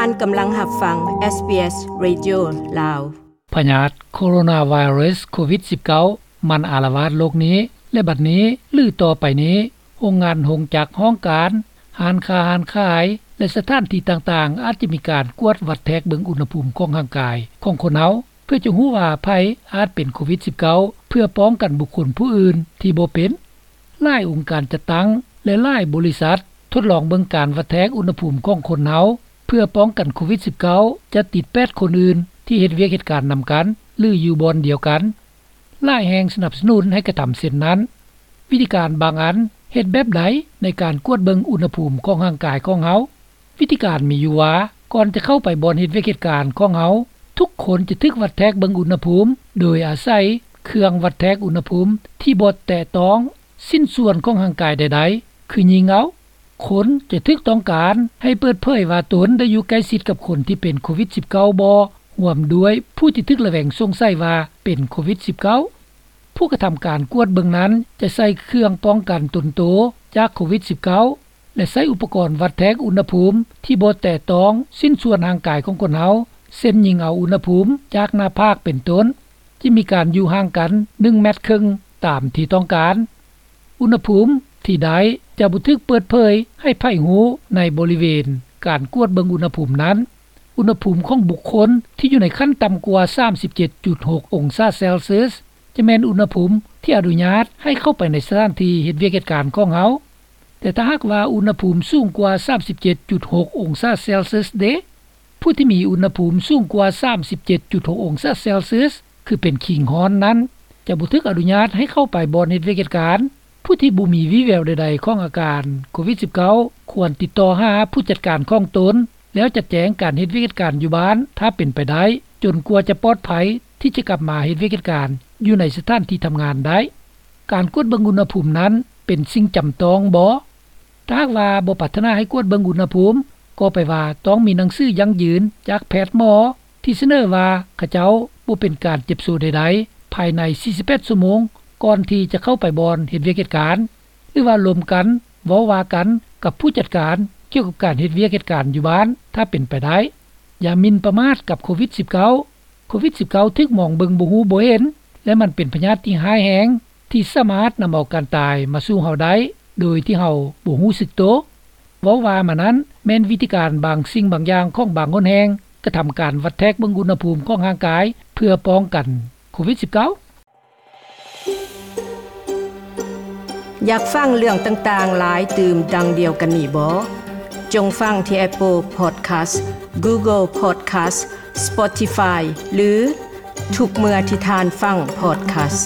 ທ່ານກຳລັງຮັບຟັງ ເອສບີເອສ Radio ລາວ. ພະຍາດໂຄໂຣນາໄວຣັສໂຄວິດສິບເກົ້າ ມັນອາລະວາດໂລກນີ້ ແລະ ບັດນີ້ ຫຼື ຕໍ່ໄປນີ້ ໂຮງງານ, ໂຮງຈັກ, ຫ້ອງການ, ຮ້ານຄ້າ, ຮ້ານຂາຍ ແລະ ສະຖານທີ່ຕ່າງໆ ອາດຈະມີການກວດວັດແທກເບິ່ງອຸນຫະພູມຂອງຮ່າງກາຍຂອງຄົນເຮົາ ເພື່ອຈະຮູ້ວ່າໃຜອາດເປັນໂຄວິດສິບເກົ້າ ເພື່ອປ້ອງກັນບຸກຄົນຜູ້ອື່ນທີ່ບໍ່ເປັນ. ຫຼາຍອົງການຈັດຕັ້ງ ແລະ ຫຼາຍບໍລິສັດທົດລອງເບິ່ງການວັດແທກອຸນຫະພູມຂອງຄົນເຮົາ ເພື່ອປ້ອງກັນໂຄວິດສິບເກົ້າ ຈະຕິດແປດຄົນອື່ນທີ່ເຮັດວຽກເຮັດການນຳກັນ ຫຼື ຢູ່ບ່ອນດຽວກັນ. ຫຼາຍແຫ່ງສະໜັບສະໜູນໃຫ້ກະທຳເຊັ່ນນັ້ນ. ວິທີການບາງອັນເຮັດແບບໃດໃນການກວດເບິ່ງອຸນຫະພູມຂອງຮ່າງກາຍຂອງເຮົາ? ວິທີການມີຢູ່ວ່າ ກ່ອນຈະເຂົ້າໄປບ່ອນເຮັດວຽກເຮັດການຂອງເຮົາ, ທຸກຄົນຈະຖືກວັດແທກເບິ່ງອຸນຫະພູມ ໂດຍອາໄສເຄື່ອງວັດແທກອຸນຫະພູມທີ່ບໍ່ແຕະຕ້ອງຊິ້ນສ່ວນຂອງຮ່າງກາຍໃດໆ ຄືຍິງເອົາ. ຄົນຈະຖືກຕ້ອງການໃຫ້ເປີດເຜີຍວ່າຕົນໄດ້ຢູ່ໃກ້ຊິດກັບຄົນທີ່ເປັນໂຄວິດສິບເກົ້າບໍ່, ຮ່ວມດ້ວຍຜູ້ທີ່ຖືກລະແວງສົງໄສວ່າເປັນໂຄວິດສິບເກົ້າ. ຜູ້ກະທຳການກວດເບິ່ງນັ້ນຈະໃສ່ເຄື່ອງປ້ອງກັນຕົນໂຕຈາກໂຄວິດສິບເກົ້າ ແລະ ໃຊ້ອຸປະກອນວັດແທກອຸນຫະພູມທີ່ບໍ່ແຕະຕ້ອງຊິ້ນສ່ວນຮ່າງກາຍຂອງຄົນເຮົາ ເຊັ່ນ ຍິງເອົາອຸນຫະພູມຈາກໜ້າຜາກເປັນຕົ້ນ. ຈະມີການຢູ່ຫ່າງກັນໜຶ່ງແມັດເຄິ່ງຕາມທີ່ຕ້ອງການ. ອຸນຫະພູມທີ່ໄດ້ຈະບໍ່ຖືກເປີດເຜີຍໃຫ້ໃຜຮູ້ໃນບໍລິເວນການກວດເບິ່ງອຸນຫະພູມນັ້ນ. ອຸນຫະພູມຂອງບຸກຄົນທີ່ຢູ່ໃນຂັ້ນຕ່ຳກວ່າສາມສິບເຈັດຈຸດຫົກອົງສາເຊລຊຽສ ຈະແມ່ນອຸນຫະພູມທີ່ອະນຸຍາດໃຫ້ເຂົ້າໄປໃນສະຖານທີ່ເຮັດວຽກເຮັດການຂອງເຮົາ. ແຕ່ຖ້າຫາກວ່າອຸນຫະພູມສູງກວ່າສາມສິບເຈັດຈຸດຫົກອົງສາເຊລຊຽສເດ? ຜູ້ທີ່ມີອຸນຫະພູມສູງກວ່າສາມສິບເຈັດຈຸດຫົກອົງສາເຊລຊຽສ ຄືເປັນຄີງຮ້ອນນັ້ນ ຈະບໍ່ຖືກອະນຸຍາດໃຫ້ເຂົ້າໄປບ່ອນເຮັດວຽກເຮັດການ. ຜູ້ທີ່ບໍ່ມີວີ່ແວວໃດໆຂອງອາການໂຄວິດສິບເກົ້າ ຄວນຕິດຕໍ່ຫາຜູ້ຈັດການຂອງຕົນ ແລ້ວຈັດແຈງການເຮັດວຽກເຮັດການຢູ່ບ້ານ ຖ້າເປັນໄປໄດ້ ຈົນກວ່າຈະປອດໄພທີ່ຈະກັບມາເຮັດວຽກເຮັດການຢູ່ໃນສະຖານທີ່ທຳງານໄດ້. ການກວດເບິ່ງອຸນຫະພູມນັ້ນເປັນສິ່ງຈຳຕ້ອງບໍ່? ຖ້າຫາກວ່າບໍ່ປາດຖະໜາໃຫ້ກວດເບິ່ງອຸນຫະພູມ ກໍແປວ່າຕ້ອງມີໜັງສືຢັ້ງຢືນຈາກແພດໝໍ ທີ່ສະເໜີວ່າເຂົາເຈົ້າບໍ່ເປັນການເຈັບໂຊໃດໆ ພາຍໃນສີ່ສິບແປດຊົ່ວໂມງ ກ່ອນທີ່ຈະເຂົ້າໄປບ່ອນເຮັດວຽກເຮັດການ ຫຼືວ່າລົມກັນເວົ້າວ່າກັນກັບຜູ້ຈັດການກ່ຽວກັບການເຮັດວຽກເຮັດການຢູ່ບ້ານ ຖ້າເປັນໄປໄດ້. ຢ່າໝິ່ນປະໝາດກັບໂຄວິດສິບເກົ້າ. ໂຄວິດສິບເກົ້າ ຖືກມອງເບິ່ງບໍ່ຮູ້ບໍ່ເຫັນ ແລະ ມັນເປັນພະຍາດທີ່ຮ້າຍແຮງ ທີ່ສາມາດນຳເອົາການຕາຍມາສູ່ເຮົາໄດ້ ໂດຍທີ່ເຮົາບໍ່ຮູ້ສຶກໂຕ. ເວົ້າວ່າມານັ້ນ ແມ່ນວິທີການບາງສິ່ງບາງຢ່າງຂອງບາງຫົນແຫ່ງ ກະທຳການວັດແທກເບິ່ງອຸນຫະພູມຂອງຮ່າງກາຍ ເພື່ອປ້ອງກັນໂຄວິດສິບເກົ້າ. ຢາກຟັງເລື່ອງຕ່າງໆຫຼາຍຕື່ມດັ່ງດຽວກັນນີ້ບໍ່? ຈົ່ງຟັງທີ່ Apple Podcast, Google Podcast, Spotify ຫຼື ທຸກເມື່ອທີ່ທ່ານຟັງ podcast.